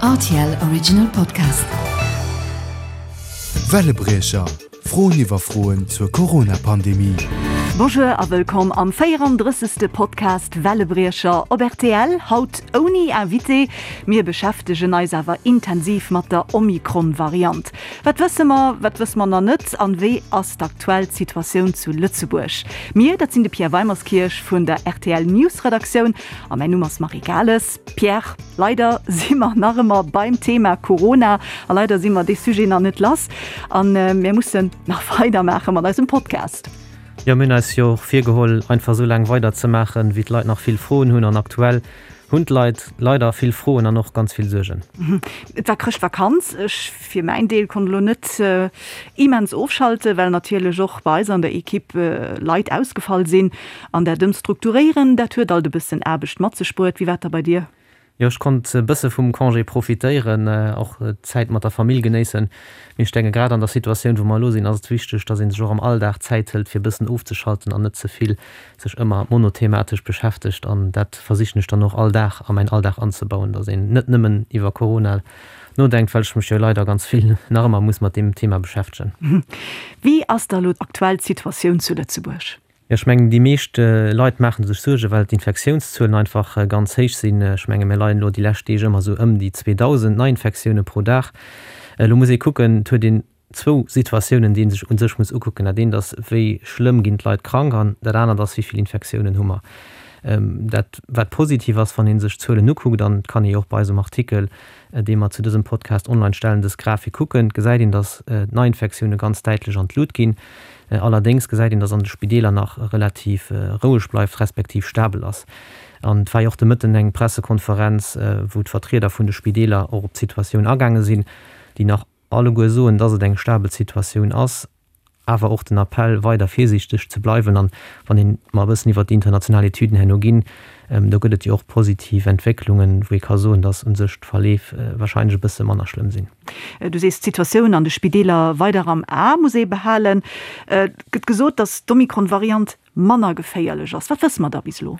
Rtl Original Podcast. Wellebriecher, Froen iwwer Froen zur Corona-Pandemie. Bonjour a wëllkomm am 34. Podcast Wellebriecher op rtl. Haut ouni Invité. Mir beschäftegen eis awer intensiv mat der Omikron-Variant. Wat wësse mer, wat wësse mer nach net an wéi ass d'aktuell Situatioun zu Lëtzebuerg? Mir, dat sinn de Pierre Weimerskirch vun der rtl News-Redaktioun a mäin Numm ass Marie Gales. Pierre, leider si mer nach ëmmer beim Thema Corona a leider si mer dee Sujet nach net lass an mir mussen nach weidermaache mat eisem Podcast. Jo, mir hunn eis jo och virgeholl, einfach esou laang weiderzemaachen, wéi d'Leit nach vill Froen hunn. An aktuell hunn d'Leit leider vill Froen an och ganz vill Suergen. Et war Chrëschtvakanz. Ech fir mäin Deel konnt elo net immens ofschalten, well natierlech och bei eis an der Equipe Leit ausgefall sinn. An dat Ëmstrukturéieren, dat huet alt e bëssen Aarbecht mat sech bruet. Wéi war et da bei dir? Jo, ech konnt e bësse vum Congé profitéieren, och d'Zäit mat der Famill genéissen. Mee ech denke grad an der Situatioun, wou mer elo sinn, ass et wichteg, dass ee sech och am Alldag Zäit hëlt, fir e bëssen ofzeschalten an net ze vill sech ëmmer monothematesch beschäftegt. An dat versichen ech dann och all Dag a mäin Alldag anzebauen, dass een net nëmmen iwwer Corona nodenkt, well ech mech jo leider ganz vill nach ëmmer muss mat deem Thema beschäftegen. Wéi ass da elo aktuell d'Situatioun zu Lëtzebuerg? Jo, ech mengen, déi meescht Leit maache sech Suergen, well d'Infektiounszuelen einfach ganz héich sinn. Ech menge mir leien elo déi lescht Deeg ëmmer esou ëm déi 2.000 Neiinfektioune pro Dag. Elo muss ee kucken, et huet een zwou Situatiounen, déi ee sech u sech muss ukucken. Dat eent ass, wéi schlëmm ginn d'Leit krank an dat anert ass, wéi vill Infektiounen hu mer. Dat wat positiv ass, wann ee sech d'Zuelen ukuckt, an et kann ee jo och bei eisem Artikel, dee mer zu dësem Podcast online stellen, dës Grafik kucken, gesäit een, datt d'Neiinfektioune ganz däitlech an d'Lut ginn. Allerdéngs gesäit een, datt an de Spideeler nach relativ roueg bleift, respektiv stabel ass. An et war jo och de Mëtten eng Pressekonferenz, wou d'Vertrieder vun de Spideeler och op d'Situatioun agaange sinn, déi nach alleguer soen, datt et eng stabel Situatioun ass, awer och den Appell, weider virsiichteg ze bleiwen. An wann een mer e bëssen iwwert déi international Etüden herno ginn, do gëtt et jo och positiv Entwécklungen, wou ee ka soen, datt u sech d'Verleef warscheinlech e bësse manner schlëmm sinn. Du sees, d'Situatioun an de Spideeler weider am A muss ee behalen. Et gëtt gesot, datt d'Omikron-Variant manner geféierlech ass. Wat wësse mer da bis elo?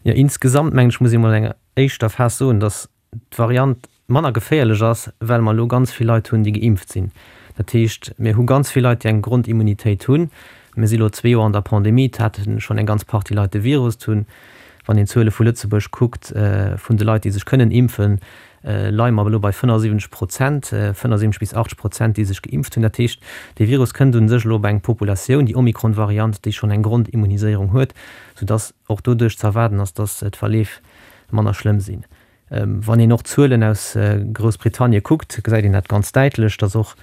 Jo, insgesamt mengen ech, muss ee mol an enger éischter Phas soen, datt d'Variant manner geféierlech ass, well mer elo ganz vill Leit hunn, déi geimpft sinn. Dat heescht, mir hu ganz vill Leit, déi eng Grondimmunitéit hunn. Mir si elo zwee Joer an der Pandemie, et hate schonn eng ganz Partie Leit de Virus. Et hunn, wann een d'Zuele vu Lëtzebuerg kuckt, vun de Leit, déi sech kënnen impfen, leie mer elo bei 75 Prozent, 75 bis 80 Prozent, déi sech geimpft hunn. Dat heescht, dee Virus kënnt u sech elo op eng Populatioun, déi Omikron-Variant, déi schonn eng Grondimmuniséierung huet, soudass och doduerch ze erwaarden ass, dass d'Verleef manner schlëmm sinn. Wann een och d'Zuelen aus Groussbritannie kuckt, gesäit een dat ganz däitlech, dass och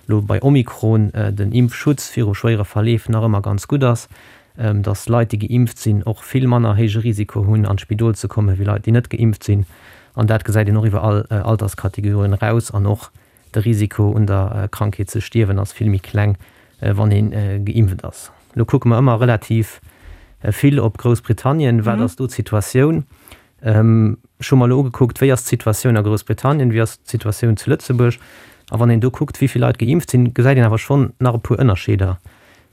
elo bei Omikron den Impfschutz viru schwéiere Verleef nach ëmmer ganz gutt ass, dass Leit, déi geimpft sinn, och vill manner héije Risiko hunn, an d'Spidol ze kommen, wéi Leit, déi net geimpft sinn. An dat gesäit een och iwwer all Alterskategorien eraus. An och de Risiko, un der Krankheet ze stierwen, ass vill méi kleng, wann ee geimpft ass. Elo kucke mer ëmmer relativ vill op Groussbritannien. Wat ass do d'Situatioun? Ech hu mer elo ugekuckt, wéi ass d'Situatioun a Groussbritannien, wéi ass d'Situatioun zu Lëtzebuerg. A wann een do kuckt, wéi vill Leit geimpft sinn, gesäit een awer schonn nach e puer Ënnerscheeder.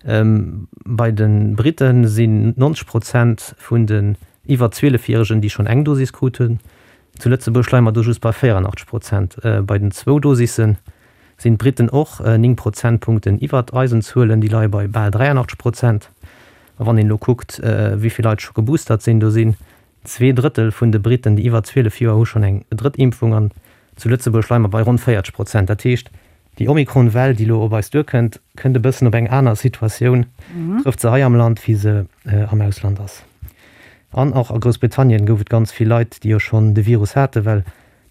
Bei de Britte sinn 90 Prozent vun den iwwer 12 Järegen, déi schonn eng Dosis krut hunn. Zu Lëtzebuerg leie mer do just bei 84 Prozent. Bei den zwou Dosisse sinn d'Britten och 9 Prozentpunkten iwwert eisen Zuelen, déi leie bei bal 83 Prozent. A wann een elo kuckt, wéi vill Leit scho geboostert sinn, do sinn Zweedrëttel vun de Britten, déi iwwer 12 Joer hu schonn eng drëtt Impfung an zu Lëtzebuerg leie mer bei ronn 40 Prozent. Dat heescht, déi Omikron-Well, déi elo op eis duerkënnt, kënnt e bëssen op eng aner Situatioun, trëfft se hei am Land, wéi se am Ausland ass. An och a Groussbritannien gouf et ganz vill Leit, déi jo schonn de Virus haten, well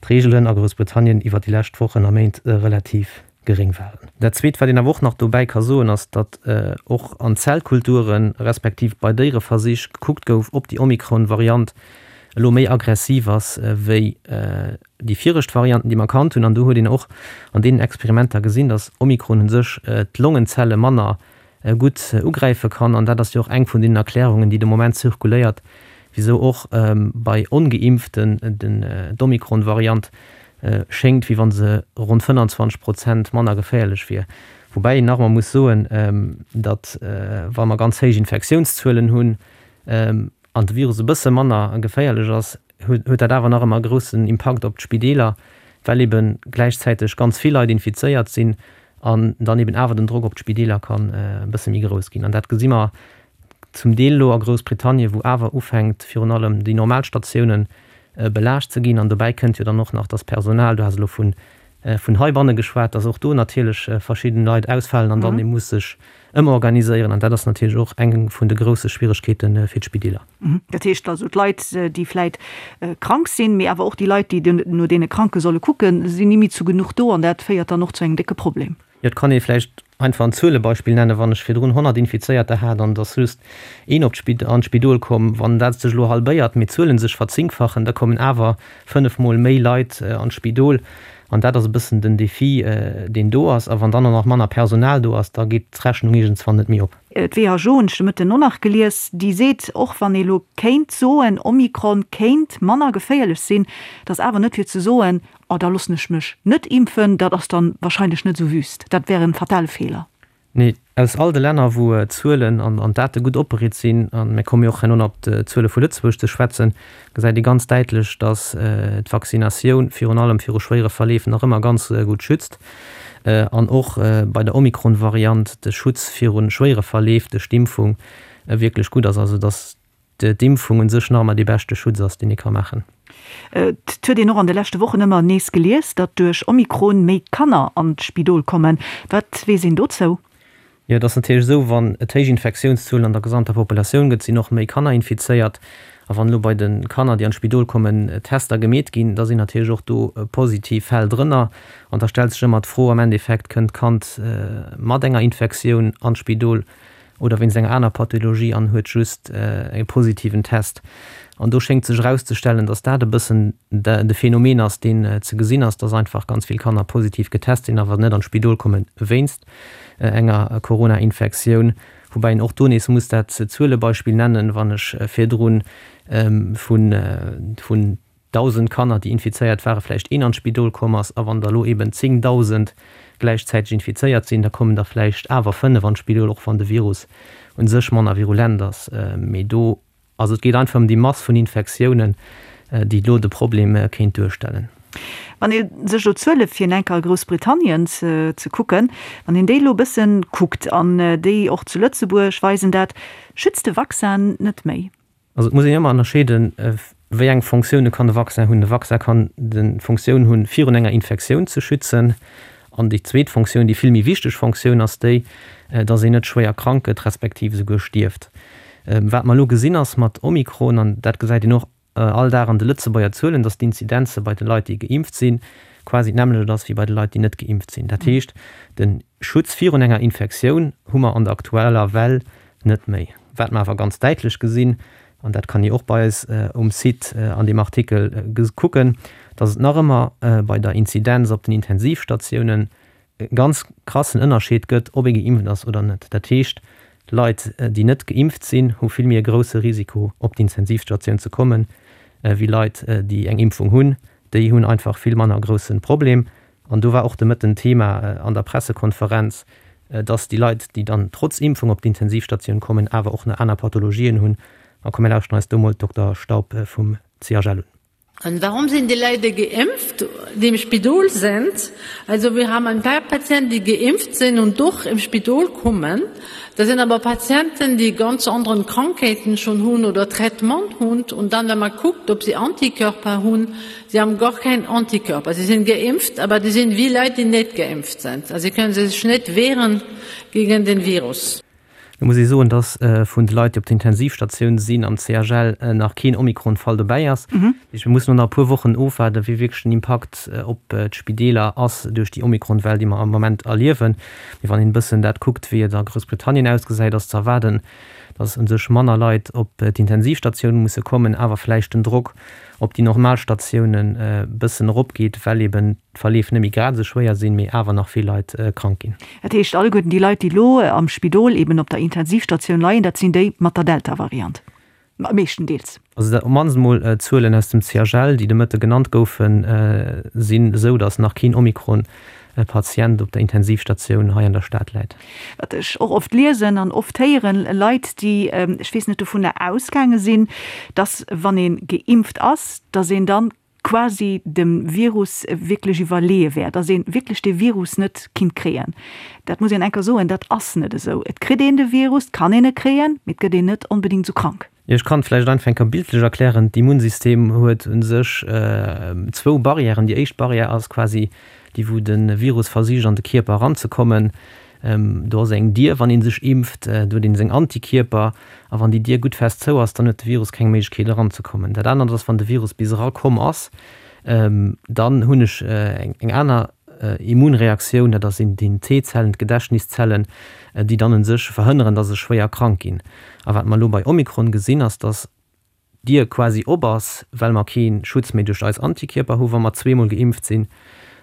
d'Reegelen a Groussbritannien iwwer déi lescht Wochen a Méint relativ geréng waren. Dat Zweet, wat een awer och nach dobäi ka soen, ass, datt och an Zellkulturen, respektiv bei Déiereversich gekuckt gouf, ob déi Omikron-Variant elo méi aggressiv ass wéi déi viregt Varianten, déi mer kannt hunn. An do huet een och an deenen Experimenter gesinn, datt Omikron u sech d'Longenzelle manner gutt ugräife kann. An dat ass jo och eng vun deenen Erklärungen, déi de Moment zirkuléiert, wisou och bei Ongeimpften d'Omikron-Variant schéngt, wéi wa se ronn 25 Prozent manner geféierlech wier. Woubäi een nach emol muss soen, datt wa mer ganz héich Infektiounszuelen hunn an de Virus e bësse manner geféierlech ass, huet dat awer nach ëmmer e groussen Impakt op d'Spideeler. Well ebe gläichzäiteg ganz vill Leit infizéiert sinn an dann eben awer den Drock op d'Spideeler kann e bësse méi grouss ginn. An dat gesi mer zum Deel elo a Groussbritannien, wou awer ufänkt virun allem déi normal Statiounen belaascht ze ginn. An dobäi kënnt jo dann och nach, dass d'Personal, du has elo vun heibanne geschwat, dass och do natierlech verschidden Leit ausfalen an dann ee muss sech ëmorganiséieren. An dat ass natierlech och eng vun de grousse Schwieregkeete fir d'Spideeler. Dat heescht also, d'Leit, déi vläit krank sinn, mee awer och déi Leit, déi no deene Kranke solle kucken, sinn ni méi zu genuch do an dat féiert dann och zu engem décke Problem. Jo, et kann ee vläicht einfach en Zuelebeispill nennen, Wann ech virdrun 100 Infizéierter hat an et ass just een op an d'Spidol komm, wann dat sech elo halbéiert, mee d'Zuele sech verzéngfachen, da kommen awer fënnefmol méi Leit an d'Spidol. An dat ass e bëssen den Defi, deen do ass. A wann dann och nach manner Personal do ass, da geet d'Rechnung iergendswann net méi op. D'WHO hunn ech de Mëtten och nach gelies, déi seet, och wann ee lo kéint soen, Omikron kéint manner geféierlech sinn, et ass awer net fir ze soen, oh da loossen ech mech net impfen, dat ass dann wahrscheinlech net esou wüst, dat wär en fatale Feeler. Nee, aus all de Länner, wou d'Zuelen an d'Date gutt opbereet sinn, a mir komme jo och herno nach op d'Zuele vu Lëtzebuerg ze schwätzen, gesäit ee ganz däitlech, datt d'Vaccinatioun virun allem viru schwéiere Verleef nach ëmmer ganz gutt schützt an och bei der Omikron-Variant de Schutz viru schwéiere Verleef duerch d'Impfung wierklech gutt ass, also datt d'Impfung un sech nach ëmmer dee beschte Schutz ass, deen ee ka maachen. Et huet een och an de leschte Wochen ëmmer nees gelies, datt duerch Omikron méi Kanner an d'Spidol kommen. Wat weess een dozou? Jo, et ass natierlech esou, wann et héich Infektiounszuelen an der gesamter Populatioun gëtt, sinn och méi Kanner infizéiert. A wann elo bei de Kanner, déi an d'Spidol kommen, Tester gemeet ginn, da sinn natierlech och do positiv Fäll drënner. An da stellt sech ëmmer d'Fro am Endeffekt, Kënnt d'Kand mat enger Infektioun an d'Spidol oder wéinst enger aner Pathologie an huet just e positiven Test. An do schéngt sech erauszestellen, datt dat e bëssen de Phänomen ass, deen ze gesinn ass, datt einfach ganz vill Kanner positiv getest sinn, awer net an d'Spidol komme wéinst enger Corona-Infektioun. Woubäi een och do nees muss dat Zuelebeispill nennen, wann ech virdru vun 1.000 Kanner, déi infizéiert waren, vläicht een an d'Spidol komm ass, a wann der elo eben 10.000 gläichzäiteg infizéiert sinn, da kommen der vläicht awer 5 an d'Spidol, och wann de Virus u sech manner virulent ass. Mee do, also et geet einfach ëm déi Mass vun Infektiounen, déi elo de Problem kéint duerstellen. Wann ee sech elo d'Zuele fir enker a Groussbritannien ze kucken, wann een déi elo e bëssen kuckt an déi och zu Lëtzebuerg weisen dat, schützt de Vaccin net méi. Also et muss een ëmmer ënnerscheeden, wéi eng Fonctioune kann de Vaccin hunn. De Vaccin kann d'Fonctioun hunn, virun enger Infektioun ze schützen. An déi zweet Fonctioun, déi vill méi wichteg Fonctioun ass déi, datt een net schwéier krank gëtt, respektiv esouguer stierft. Wat mer elo gesinn ass mat Omikron, an dat gesäit een och all Dag an de Lëtzebuerger Zuelen, datt d'Inzidenze bei de Leit, déi geimpft sinn, quasi d'nämmlecht ass wéi bei de Leit, déi net geimpft sinn. Dat heescht, de Schutz virun enger Infektioun hu mer an der aktueller Well net méi. Wat mer awer ganz däitlech gesinn, an dat kann ee och bei eis um Site an deem Artikel kucken, datt et nach ëmmer bei der Inzidenz op den Intensivstatiounen e ganz krassen Ënnerscheed gëtt, ob ee geimpft ass oder net. Dat heescht, Leit, déi net geimpft sinn, hu vill méi e grousse Risiko, op d'Intensivstatioun ze kommen, wéi Leit, déi eng Impfung hunn. Déi hunn einfach vill manner e grousse Problem. An do war och de Mëtten Thema an der Pressekonferenz, dass déi Leit, déi dann trotz Impfung op d'Intensivstatioun kommen, awer och nach aner Pathologien hunn. A komm mir lauschteren eis do mol d'Dokter Staub vum CHL un. Und warum sind die Leute geimpft, die im Spidol sind? Also wir haben ein paar Patienten, die geimpft sind und doch im Spidol kommen. Das sind aber Patienten, die ganz anderen Krankheiten schon hun oder Traitement hun. Und dann, wenn man guckt, ob sie Antikörper hun, sie haben gar keinen Antikörper. Sie sind geimpft, aber die sind wie Leute, die nicht geimpft sind. Also sie können sich nicht wehren gegen den Virus. Et muss ee soen, datt vun de Leit, déi op der Intensivstatioun sinn am CHL, nach keen Omikron-Fall dobäi ass. Dat heescht, mir mussen elo nach e puer Wochen ofwaarden, wéi wierklech den Impakt op d'Spideeler ass duerch déi Omikron-Well, déi mer am Moment erliewen. Mee wann een e bëssen dat kuckt, wéi et a Groussbritannien ausgesäit, ass ze erwaarden, datt u sech manner Leit op d'Intensivstatioun musse kommen, awer vläicht den Drock op déi normal Statiounen e bëssen eropgeet, well eben d'Verleef net méi grad esou schwéier sinn, mee awer nach vill Leit krank ginn. Dat heescht, alleguerten déi Leit, déi elo am Spidol eben op der Intensivstatioun leien, dat sinn déi mat der Delta-Variant, meeschtendeels. Also dat op d'mannst emol d'Zuelen aus dem CHL, déi de Mëtte genannt goufen, sinn esou, datt nach keen Omikron-Patient op der Intensivstatioun hei an der Stad läit. Wat ech och oft liesen an oft héieren, Leit, déi, ech weess net, dovunner ausgaange sinn, datt wann ee geimpft ass, datt een dann. quasi dem Virus wierklech iwwerleeë wär, dass ee wierklech dee Virus net kinnt kréien. Dat muss een enker soen, dat ass net esou. Et kritt een de Virus, et kann een e kréien, mee et gëtt een net onbedéngt esou krank. Jo, ech kann et vläicht einfach eng Kéier bildlech erklären. D'Immunsystem huet u sech zwou Barrièren. Déi éischt Barrière ass quasi déi, wou de Virus versicht an de Kierper eranzekommen. Do ass eng Dier, wann ee sech impft, do huet ee seng Antikierper. A wann déi Dier gutt fest zou ass, dann huet de Virus keng Méiglechkeet eranzekommen. Dat anert ass, wann de Virus bis erakomm ass, dann hunn ech eng aner Immunreaktioun, dat ass sinn d'T-Zellen, d'Gedächtniszellen, déi dann u sech verhënneren, dass ech schwéier krank ginn. A wat mer elo bei Omikron gesinn, ass, dass d'Dier quasi op ass, well mer kee Schutz méi duerch eis Antikierper hu wa mer zweemol geimpft sinn.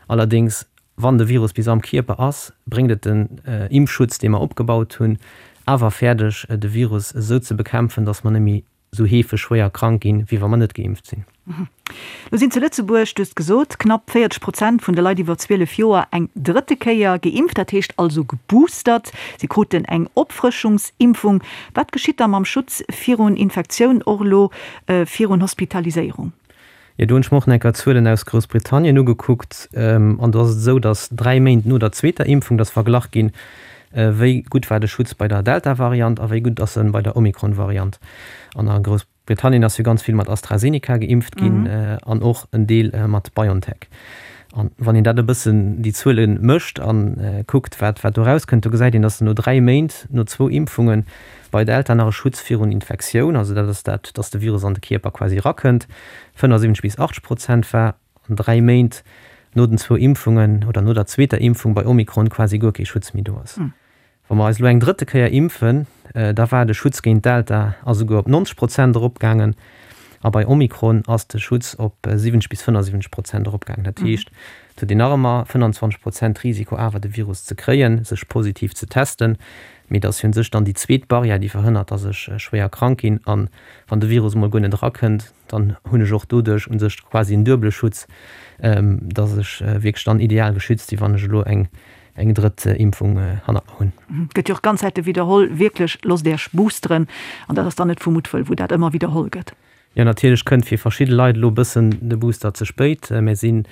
Allerdéngs, wann de Virus bis am Kierper ass, bréngt et den Impfschutz, dee mer opgebaut hunn, awer fäerdeg, de Virus esou ze bekämpfen, dass mer net méi esou heefeg schwéier krank ginn, wéi wa mer net geimpft sinn. Lo sinn zu Lëtzebuerg, du hues gesot, knapp 40 Prozent vun de Leit iwwer 12 Joer eng drëtte Kéier geimpft, dat heescht also geboostert. Si kruten eng Opfrëschungsimpfung. Wat geschitt da mam Schutz virun Infektioun, och elo virun Hospitaliséierung? Jo, do hunn ech mer och nach eng Kéier d'Zuelen aus Groussbritannien ugekuckt. An do ass et esou, datt dräi Méint no der zweeter Impfung, datt verglach ginn, wéi gutt war de Schutz bei der Delta-Variant a wéi gutt ass en bei der Omikron-Variant. An a Groussbritannien ass jo ganz vill mat AstraZeneca geimpft ginn an och en Deel mat BioNTech. An wann een dat e bëssen, déi Zuele mécht a kuckt, wat wat do erauskënnt, do gesäit een, datt no dräi Méint no zwou Impfunge bei Delta nach e Schutz virun Infektioun, also dat ass dat, datt de Virus an de Kierper quasi erakënnt, 75 bis 80 Prozent war an dräi Méint no den zwou Impfungen oder no der zweeter Impfung bei Omikron quasi guer kee Schutz méi do ass. Wa mer eis elo eng drëtte Kéier impfen, da war de Schutz géint Delta a souguer op 90 Prozent eropgaangen a bei Omikron ass de Schutz op 70 bis 75 Prozent eropgaangen. Dat heescht, et huet een nach ëmmer 25 Prozent Risiko awer de Virus ze kréien, sech positiv ze testen, mee et ass jo un sech dann déi zweet Barrière, déi verhënnert, datt ech schwéier krank ginn. An wann de Virus emol guer net erakënnt, dann hunn ech och doduerch un sech quasi en duebele Schutz, datt ech wierklech dann ideal geschützt sinn, wann ech elo eng eng drëtt Impfung hannert mer hunn. Gëtt jo och ganz Zäite widderholl, wierklech, loosst Iech boosteren. An dat ass dann net vu Muttwëll, wou dat ëmmer widderholl gëtt. Jo, natierlech kënnt fir verschidde Leit elo e bëssen de Booster ze spéit. Mir sinn,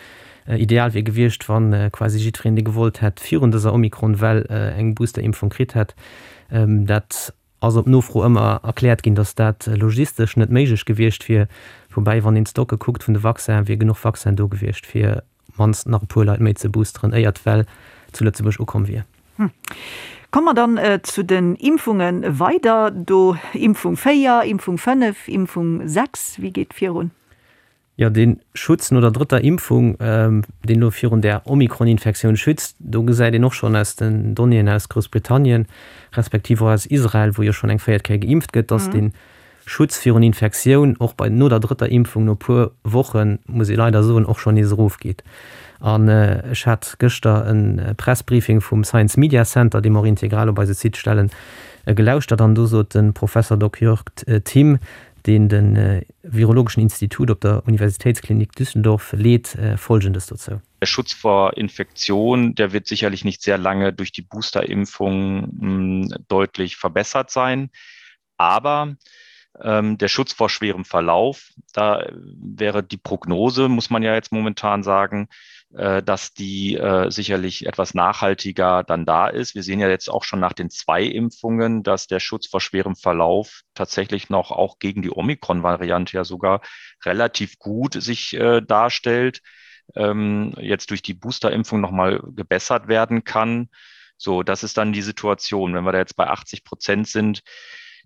ideal wier gewiescht, wa quasi jiddwereen, dee gewollt hätt, virun dëser Omikron-Well eng Boosterimpfung kritt hätt. Dat ass op Nofro ëmmer erkläert ginn, datt dat logistesch net méiglech gewiescht wier. Woubäi, wann een d'Stocke kuckt vun de Vaccinen, wier genuch Vaccin do gewiescht, fir mannst nach e puer Leit méi ze boosteren, éier d'Well zu Lëtzebuerg ukomm wier. Komme mer dann zu den Impfunge weider. Do Impfung 4, Impfung 5, Impfung 6, wéi geet virun? Jo, dee Schutz no der drëtter Impfung, deen elo virun där Omikron-Infektioun schützt, do gesäit een och schonn aus den Donnéeën aus Groussbritannien, respektiv och aus Israel, wou jo schonn eng véiert Kéier geimpft gëtt, dass dee Schutz virun Infektioun och bei no der drëtter Impfung no puer Wochen, muss ee leider soen, och schonn nees erofgeet. An ech hat gëschter e Pressbriefing vum Science Media Center, dee mer och integral op eise Site stellen, gelauschtert an do sot de Professor Dok. Jörg Timm, deen de virologeschen Institut op der Universitätsklinik Düsseldorf leet, Folgendes dozou. Der Schutz vor Infektion, der wird sicherlich nicht sehr lange durch die Boosterimpfung deutlich verbessert sein. Aber ähm, der Schutz vor schwerem Verlauf, da wäre die Prognose, muss man ja jetzt momentan sagen, äh, dass die äh, sicherlich etwas nachhaltiger dann da ist. Wir sehen ja jetzt auch schon nach den zwei Impfungen, dass der Schutz vor schwerem Verlauf tatsächlich noch auch gegen die Omikron-Variante ja sogar relativ gut sich äh, darstellt, ähm, jetzt durch die Boosterimpfung noch mal gebessert werden kann. So, das ist dann die Situation. Wenn wir da jetzt bei 80 Prozent sind,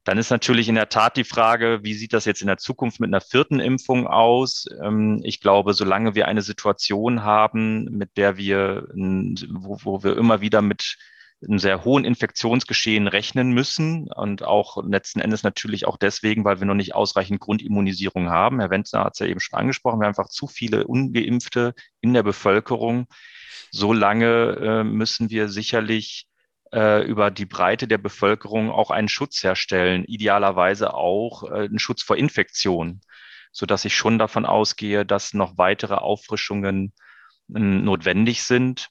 dann ist natürlich in der Tat die Frage, wie sieht das jetzt in der Zukunft mit einer vierten Impfung aus? Ähm, ich glaube, solange wir eine Situation haben, mit der wir, wo, wo wir immer wieder mit einem sehr hohen Infektionsgeschehen rechnen müssen und auch letzten Endes natürlich auch deswegen, weil wir noch nicht ausreichend Grundimmunisierung haben. Herr Wenzner hat es ja eben schon angesprochen, wir haben einfach zu viele Ungeimpfte in der Bevölkerung. Solange äh, müssen wir sicherlich äh, über die Breite der Bevölkerung auch einen Schutz herstellen, idealerweise auch äh, einen Schutz vor Infektionen, so dass ich schon davon ausgehe, dass noch weitere Auffrischungen äh, notwendig sind.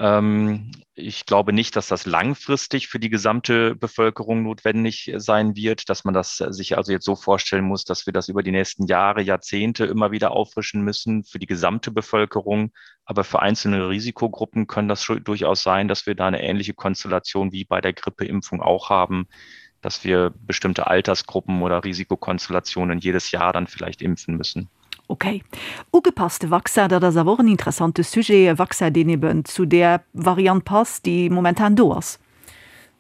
Ähm, ich glaube nicht, dass das langfristig für die gesamte Bevölkerung notwendig sein wird, dass man das sich also jetzt so vorstellen muss, dass wir das über die nächsten Jahre, Jahrzehnte immer wieder auffrischen müssen für die gesamte Bevölkerung. Aber für einzelne Risikogruppen können das schon durchaus sein, dass wir da eine ähnliche Konstellation wie bei der Grippeimpfung auch haben, dass wir bestimmte Altersgruppen oder Risikokonstellationen jedes Jahr dann vielleicht impfen müssen. Ok. Ugepasste Vaccin, dat ass awer och en interessante Sujet, e Vaccin, deen eben zu där Variant passt, déi momentan do ass.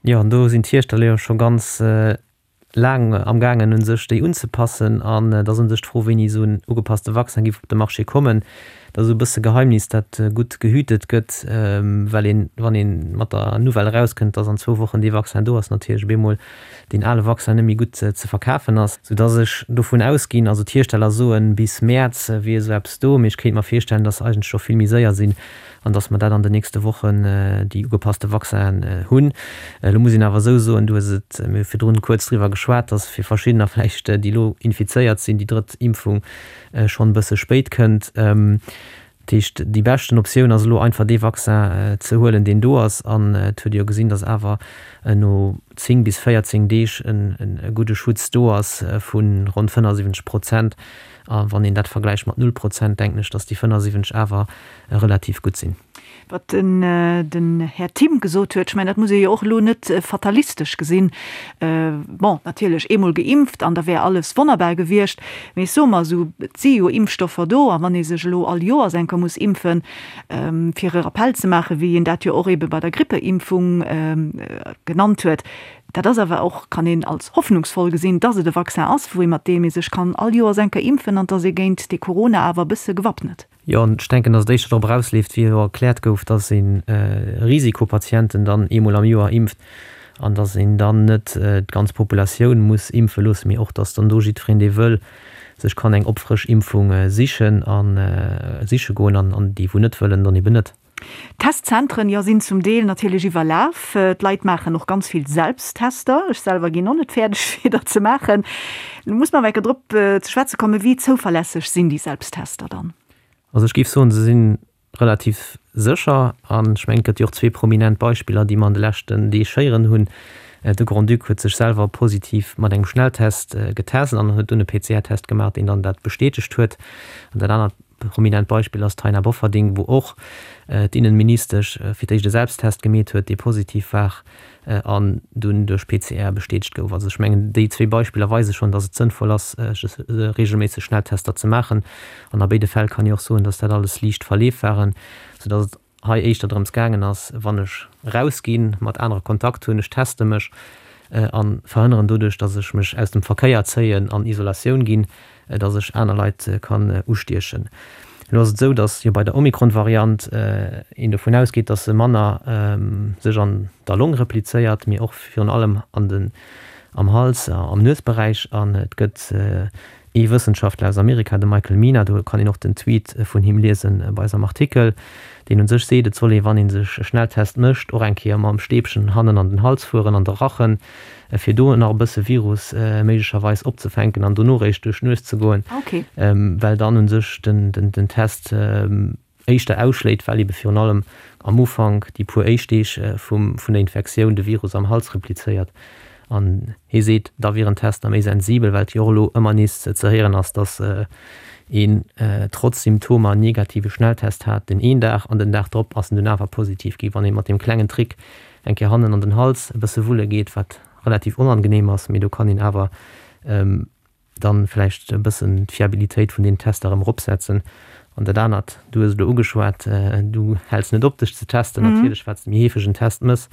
Jo, an do sinn d'Hiersteller jo scho ganz laang amgaangen, u sech déi unzepassen. An et ass u sech d'Fro, wéini esou en ugepasste Vaccin géif op de Marché kommen. Dat ass esou e bësse Geheimnis, dat gutt gehütet gëtt, well een, wann ee mat der Nouvelle erauskënnt, dass an zwou Wochen dee Vaccin do ass, natierlech op eemol deen ale Vaccin net méi gutt ze verkafen ass, soudass ech dovun ausginn, also d'Hiersteller soen, bis Mäerz wier esou eppes do, mee ech kéint mer virstellen, dass se eigentlech scho vill méi séier sinn an dass mer dat an den nächste Wochen déi ugepasste Vaccinen hunn. Elo muss een awer esou soen, du hues et, mir hu virdrun kuerz driwwer geschwat, dass fir verschiddener vläicht, déi elo infizéiert sinn, déi drëtt Impfung schonn e bësse spéit kënnt. Dat heescht, déi beschten Optioun ass elo einfach dee Vaccin ze huelen, deen do ass. An et huet ee jo gesinn, datt awer no 10 bis 14 Deeg e gudde Schutz do ass vu ronn 75 Prozent. A wann een dat vergläicht mat null Prozent, denken ech, datt déi 75 awer relativ gutt sinn. Wat den Här Thimm gesot huet, ech mengen, dat muss ee jo och elo net fatalistesch gesinn. Bon, natierlech, eemol geimpft an da wär alles wonnerbar gewiescht. Mee ech soe mer esou, et si jo Impfstoffer do a wann ee sech elo all Joers eng Kéier muss impfen, fir e Rappell ze maachen, wéi een dat jo och eebe bei der Grippeimpfung genannt huet, dat ass awer och, kann een als hoffnungsvoll gesinn, dass et e Vaccin ass, wou ee mat deem ee sech kann all Joers eng Kéier impfen an dass ee géint dee Corona awer e bësse gewappnet. Jo, an ech denken, dass et éischter drop erausleeft, wéi elo erkläert gouf, dass ee Risikopatienten dann eemol am Joer impft an dass een dann net d'ganz Populatioun muss impfe loossen, mee och, dass dann do jiddwereen, dee wëll, sech kann eng Opfrëschimpfung sichen a siche goen an déi, wou net wëllen, dann eben net. D'Testzentren, jo, sinn zum Deel natierlech iwwerlaf. D'Leit maachen och ganz vill Selbsttester. Ech selwer ginn och net fäerdeg, fir der ze maachen. Lo muss mer awer eng Kéier drop ze schwätze kommen, Wéi zouverlässeg sinn déi Selbsttester dann? Also ech géif soen, se si relativ sécher. An ech mengen, et gëtt jo och zwee prominent Beispiller, déi mer an de leschten Deeg héieren hunn. De Grand-Duc huet sech selwer positiv mat engem Schnelltest getest an huet dunn e PCR-Test gemaach, deen dann dat bestätegt huet. An dat anert Prominent Beispill ass d'Taina Bofferding, wou och d'Innenministesch fir d'éischt e Selbsttest gemeet huet, dee positiv war an dunn duerch PCR bestätegt gouf. Also ech mengen, déi zwee Beispiller weise schonn, datt et sënnvoll ass, reegelméisseg Schnelltester ze maachen. An a béide Fäll kann ee och soen, datt dat alles liicht Verleef waren, soudatt et hei éischter drëms gaangen ass, wann ech erausginn, mat anere Kontakt hunn, ech teste mech a verhënneren doduerch, datt ech mech aus dem Verkéier zéien, an Isolatioun ginn, datt ech aner Leit kann ustiechen. Elo ass et esou, datt jo bei der Omikron-Variant een dovun ausgeet, datt se manner sech an der Long replizéiert, mee och virun allem an den, am Hals, am Nuesberäich. An et gëtt Ee Wëssenschaftler aus Amerika, de Michael Mina, do kann een och den Tweet vun him liesen bei eis am Artikel, deen un sech seet, et soll ee wann ee sech e Schnelltest mécht, och eng Kéier mam Stäbchen hannen an den Hals fueren, an de Rachen, fir do nach e bësse Virus méiglecherweis opzefänken an dono réischt duerch d'Nues ze goen, well dann un sech den Test éischter ausschléit, well ebe virun allem am Ufank, déi puer éischt Deeg vum vun der Infektioun, de Virus am Hals replizéiert. An hie seet, da wieren d'Tester méi sensibel, well et jo och elo ëmmer nees ze héieren ass, datt een trotz Symptomer en negative Schnelltest hat den een Dag an den Dag drop ass en dunn awer positiv gi wann ee mat deem klengen Trick eng Kéier hannen an den Hals e bësse wulle geet, wat relativ onangeneem ass, mee do kann een awer dann vläicht e bëssen d'Fiabilitéit vun den Tester erëm eropsetzen. An dat anert, du hues et elo ugeschwat, du häls net op dech ze testen. Natierlech, wat s de méi heefeg en Test mëss,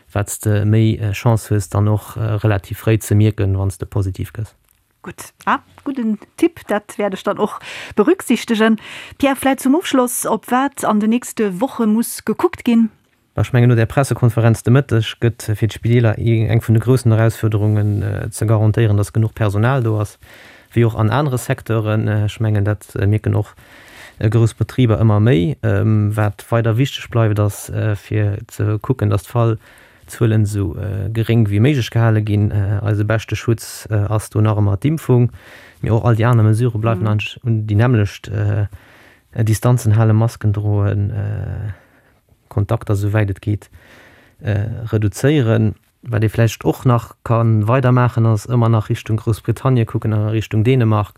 wat s de méi Chance hues dann och relativ fréi ze mierken, wann s de positiv gëss. Gutt, ah, gudden Tipp, dat wäert ech dann och berücksichtegen. Pierre, vläicht zum Ofschloss, op wat an den nächste Woche muss gekuckt ginn? Ech mengen, no där Pressekonferenz de Mëtteg gëtt fir d'Spideeler eng vun de groussen Erausfuerderungen ze garantéieren, datt genuch Personal do ass, wéi och an anere Secteuren. Ech mengen, dat mierken och grouss Betriber ëmmer méi. Wat weider wichteg bleift, ass fir ze kucken, datt d'Fallzuelen esou geréng wéi méiglech gehale ginn. Eise beschte Schutz ass do nach ëmmer d'Impfung, mee och all déi aner Mesurë bleiwen eigentlech un déi nämmlecht, Distanzen halen, Masken droen. Kontakter esou wäit et geet reduzéieren. Wat ee vläicht och nach ka weidermaachen, ass ëmmer nach Richtung Groussbritannie kucken an a Richtung Dänemark,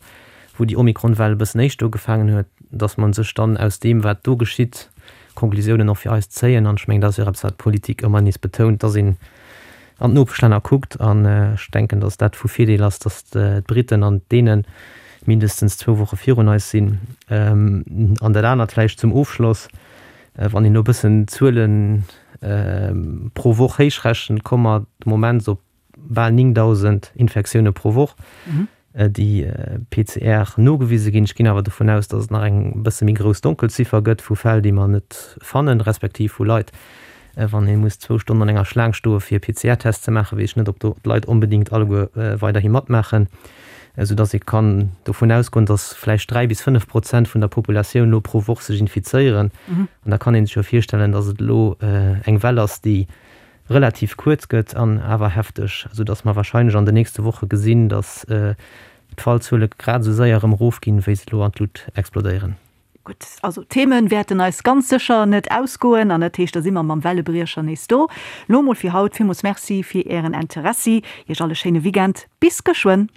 wou déi Omikron-Well e bëssen éischter ugefaangen huet, dass mer sech dann aus deem, wat do geschitt, Konklusiounen och fir eis zéien. An ech mengen, dat ass jo och eppes, wat d'Politik ëmmer nees betount, dass een an d'Nopeschlänner kuckt. An ech denken, dass dat vu Virdeel ass, dass d'Briten an d'Däne mindestens zwou Woche virun eis sinn. An dat anert vläicht zum Ofschloss, Wann een elo e bëssen d'Zuele pro Woch héichrechent, komme mer de Moment op bal 9.000 Infektioune pro Woch, déi PCR nogewise ginn. Ech ginn awer dovun aus, datt et nach eng bësse méi grouss Donkelziffer gëtt vu Fäll, déi mer net fannen, respektiv vu Leit, wann ee muss zwou Stonnen an enger Schlaang stoe fir e PCR-Test ze maachen, weess ech net, ob do d'Leit onbedéngt alleguer weiderhi matmaachen, soudatt ee kann dovun ausgoen, datt vläicht 3 bis 5 Prozent vun der Populatioun elo pro Woch sech infizéieren. An da kann ee sech jo virstellen, datt et elo eng Well ass, déi relativ kuerz gëtt an awer hefteg, soudatt mer wahrscheinlech an den nächste Woche gesinn, datt d'Fallzuele grad esou séier erëm erofginn, wéi se elo an d'Lut explodéieren. Gutt, also d'Themen wäerten eis ganz sécher net ausgoen an dat heescht, da si mer mam Wellebriecher nees do. Lo mol fir haut villmools Merci fir Ären Interessi. Iech all e schéine Weekend. Bis geschwënn.